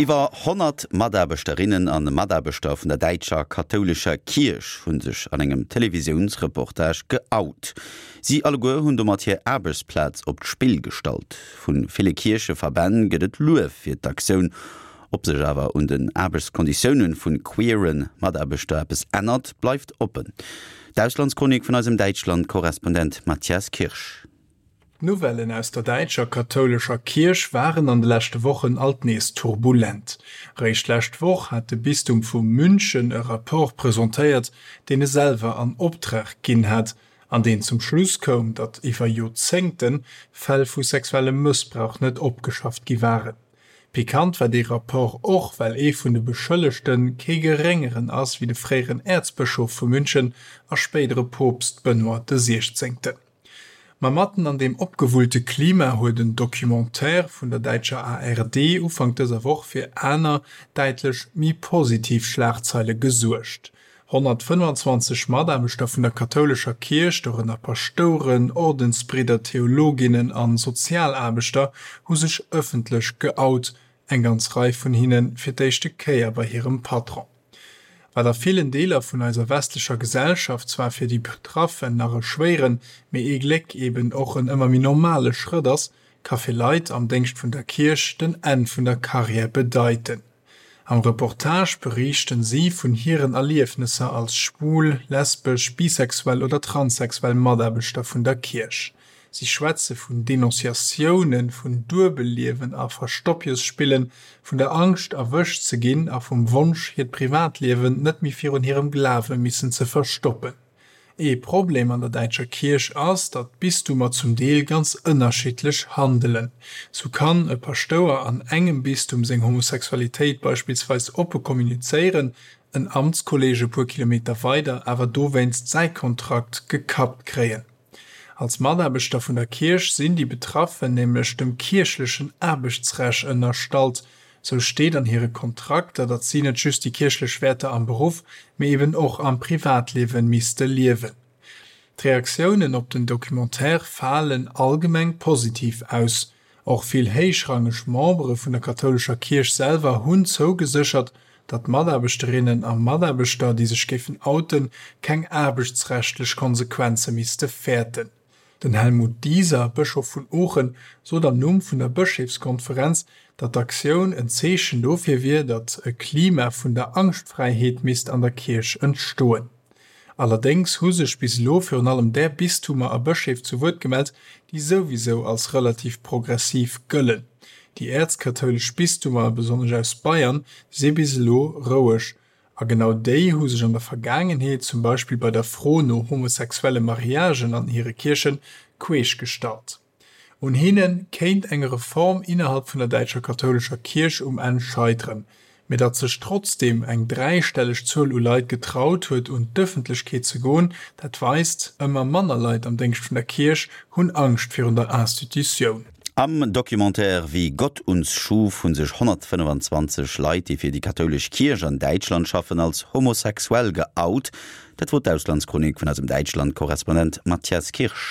Iwwer 100 Mataarbechterinnen a Mataarbechter vun der däitscher kathoulescher Kierch hu sech an engem Televisiounsreportage geout. Si alleguer hunn domat hir Aarbechtsplaz op d'Spill gestallt. Vu ville Kiercheverbänn gëtt et Luef fir d'Aktioun. Ob sech awer un den Aarbechtskonditioune vu queere Mataarbechter eppes ännert, bleift oppen. D'Auslandschronik vun eisem Däitschland-Korrespondent Matthias Kirsch. D'Nouvellen aus der däitscher kathoulescher Kierch waren an de leschte Wochen alt nees turbulent. Réischt d'lescht Woch hat de Bistum vu München e Rapport presentéiert, deen e selwer an Optrag ginn hat, an deen zum Schluss koum, datt iwwer Joerzéngte Fäll vu sexuellem Mëssbrauch net opgeschafft gi waren. Pikant war dee Rapport och, well ee vun de Beschëllegte kee Geréngeren ass wéi de fréieren Äerzbëschof vu München a spéidere Poopst Benoît de Siechzéngten. Ma matten an deem opgewullte Klima huet en Documentaire vun der däitscher ARD Ufank dëser Woch fir aner, däitlech méi positiv Schlagzeile gesuergt. 125 Mataarbechter vun der kathoulescher Kierch, dorënner Paschtouren, Ordensbridder, Theologinnen a Sozialaarbechter, hu sech ëffentlech geout, eng ganz Rei vun hinne fir d'éischte Kéier bei hirem Patron. Wat a villen Deeler vun eiser westlecher Gesellschaft zwar fir déi Betraffen nach e schwéieren, mee ee Gléck eben och en ëmmer méi normale Schrëtt ass, ka fir Leit am Déngscht vun der Kierch den Enn vun der Karriär bedeiten. Am Reportage beriichten si vun hiren Erliefnesser als schwul, lesbesch, bisexuell oder transsexuell Mataarbechter vun der Kierch. Si schwätze vun Denonciatiounen, vun Duebelliewen a Verstoppjesspillen, vun der Angscht erwëscht ze ginn a vum Wonsch hiert Privatliewen net méi virun hirem Glawe missen ze verstoppen. Ee Problem an der däitscher Kierch ass, datt d'Bistumer zum Deel ganz ënnerschiddlech handelen. Sou kann e Paschtouer an engem Bistum seng Homosexualitéit beispillsweis oppe kommunizéieren, en Amtskolleeg e puer Kilometer weider awer dowéinst säi Kontrakt gekappt kréien. Als Mataarbechter vun der Kierch sinn déi Betraffen nämlech dem kierchlechen Aarbechtsrecht ënnerstallt. Sou steet an hire Kontrakter, datt si net just déi kierchlech Wäerter am Beruff, mee eben och am Privatliewe misste liewen. D'Reaktiounen op den Documentaire falen allgemeng positiv aus. Och vill héichrangeg Membere vun der kathoulescher Kierch selwer hunn zougeséchert, datt Mataarbechterinnen a Mataarbechter, déi sech géifen outen, keng aarbechtsrechtlech Konsequenze misste fäerten. Den Helmut Dieser, Bëschof vun Oochen, sot am Numm vun der Bëscheefskonferenz, datt d'Aktioun en Zeechen dofir wier, datt e Klima vun der Angschtfräiheet misst an der Kierch entstoen. Allerdéngs hu sech bis elo virun allem där Bistumer a Bëscheef zu Wuert gemellt, déi souwisou als relativ progressiv gëllen. Déi äerzkathoulesch Bistumer, besonnesch aus Bayern, si bis elo roueg. A genau déi hu sech an der Vergaangenheet, zum Beispill bei der Fro no homosexuelle Mariagen an hire Kierchen, queesch gestallt. Un hinne kéint eng Reform innerhalb vun der däitscher kathoulescher Kierch um Enn scheiteren. Mee datt sech trotzdeem eng dräistelleg Zuel u Leit getraut huet un d'Ëffentlechkeet ze goen, dat weist, ëmmer manner Leit am Déngscht vun der Kierch hunn Angscht virun der Institutioun. Am Documentaire Wie Gott uns schuf hu sech 125 Leit, déi fir déi kathoulesch Kierch an Däitschland schaffen, als homosexuell geout. Dat wor d'Auslandschronik vun eisem Däitschland-Korrespondent Matthias Kirsch.